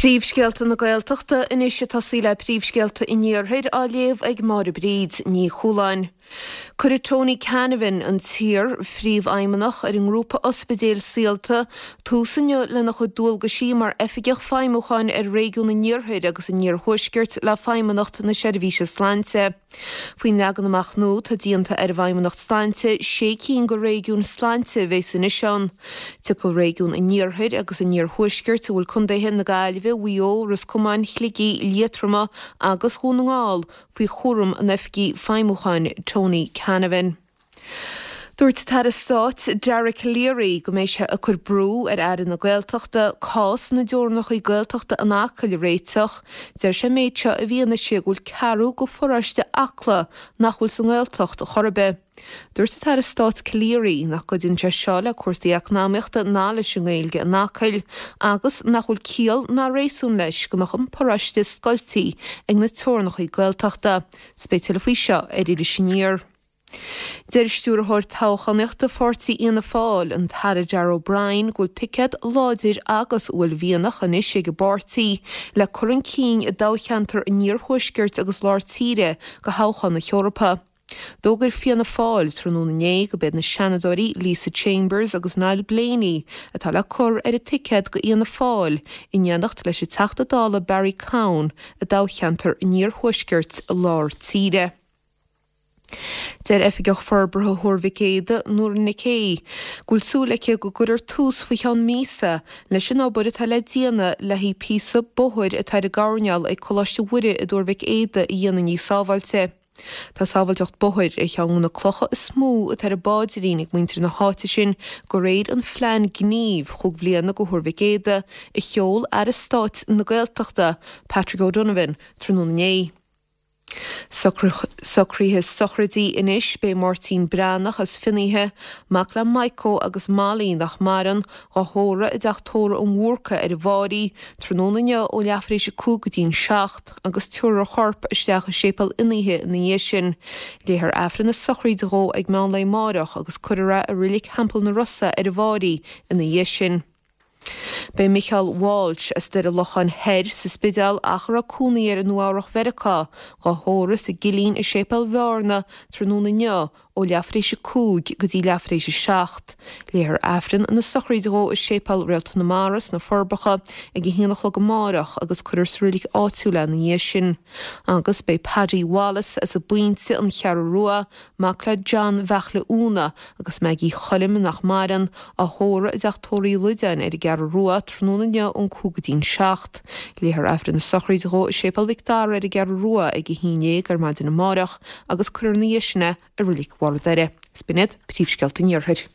Príomhscéalta na Gaeltachta anois ag tosaí le príomhscéalta an Iarthair á léamh ag Máire Bríd Ní Chualáin. Cuirfidh Tony Canavan, an t-iar-phríomhfheidhmeannach ar an ngrúpa ospidéil Saolta, tús inniu lena chuid dualgaisí mar Oifigeach Feidhmiúcháin ar Réigiún an Iarthair agus an Iarthuaiscirt le Feidhmeannacht na Seirbhíse Sláinte. Faoin leagan amach nua, tá déanta ar an bhFeidhmeannacht Sláinte sé cinn de réigiúin sláinte a bheas anois ann. Tiocfaidh réigiún an Iarthair agus an Iarthuaiscirt, a bhfuil contaetha na Gaillimhe, Mhaigh Eo, Ros Comáin, Shligigh, Liatroma agus Dhún na nGall, faoi chúram an Oifigigh Feidhmiúcháin Tony Canavan. Dúirt an tAire Stáit Dara Calleary go mbeidh sé ag cur brú ar Aire na Gaeltachta cás na dteorainneacha Gaeltachta in Acaill a réiteach. Deir sé an méid seo i bhfianaise go bhfuil ceathrú de pharóiste Acla nach bhfuil sa nGaeltacht chor ar bith. Dúirt an tAire Stáit Calleary nach gcuidíonn sé seo le cúrsaí eacnamaíochta ná leis an nGaeilge in Acaill agus nach bhfuil ciall ná réasún leis go mbeadh an paróiste scoiltí ag na teorainneacha Gaeltachta. 'S beidh tuilleadh faoi seo ar Iris Aniar. Deir Stiúrthóir Toghchánaíochta Pháirtí Fhianna Fáil, an tAire Darragh O'Brien, go bhfuil ticéad láidir agus uaillmhianach anois ag an bpáirtí le cur chun cinn i dtoghcheantar an Iarthuaiscirt agus Lár Tíre do thoghchán na hEorpa. D'fhógair Fianna Fáil tráthnóna inné go b'iad na Seanadóirí Lisa Chambers agus Niall Blaney atá le cur ar an ticéad do Fhianna Fáil in éineacht leis an Teachta Dála Barry Cowen i dtoghcheantar an Iarthuaiscirt Lár Tíre. Deir Oifigeach Forbartha Thuar Mhic Éadaigh, Nóra Nic Aoidh, go bhfuil súil aici go gcuirfear tús faoi cheann míosa leis an obair atá le déanamh le haghaidh píosa bóthair atá ar an gcoirnéal ag Coláiste Mhuire i dTuar Mhic Éadaigh a dhéanamh níos sábháilte. Tá sábháilteacht bóthair ar cheann de na clocha is mó atá ar an bpaidrín ag muintir na háite sin de réir an phlean gnímh chúig bhliana do Thuar Mhic Éadaigh a sheol Aire Stáit na Gaeltachta, Patrick O'Donovan, tráthnóna inné. Socruithe sochraidí anois, Beidh Máirtín Breathnach as Finnéithe, mac le Maidhcó agus Molly nach maireann, dhá thórramh i dTeach Tórraimh an Bhúrcaigh ar an bhFáirí, tráthnóna inniu ó leath tar éis a 5 go dtí'n 7 agus tabharfar a chorp isteach i Séipéal Fhinnéithe ina dhiaidh sin. Léifear Aifreann na sochraide dhó ag meán lae amáireach agus cuirfear é i Reilig Theampall na Rosa ar an bhFáirí ina dhiaidh sin. Beidh Micheál Walsh as Doire Locháin Thoir sa Spidéal ach a raibh cónaí air i Nua Eabhrach Mheiriceá, dhá thórramh sa gCillín i Séipéal Bhearna tráthnóna inniu ó leath tar éis a 5 go dtí leath tar éis a 7. Léifear Aifreann na sochraide dhó i Séipéal Réalta na Mara sna Forbacha ag a haon a chlog amáireach agus cuirfear sa reilig áitiúil é ina dhiaidh sin. Agus beidh Paddy Wallace as an bPointe, An Cheathrú Rua, mac le John Bheartla Úna agus Maggie Choilm, nach maireann, á thórramh i dTeach Tórraimh Uí Loideáin ar an gCeathrú Rua tráthnóna inniu ón 5 go dtí'n 7. Léifear Aifreann na sochraide dhó i Séipéal Mhic Dara ar an gCeathrú Rua ag 11 ar maidin amáireach agus cuirfear ina dhiaidh sin é i Reilig Bharr an Doire. 'S b'in iad príomhscéalta an Iarthair.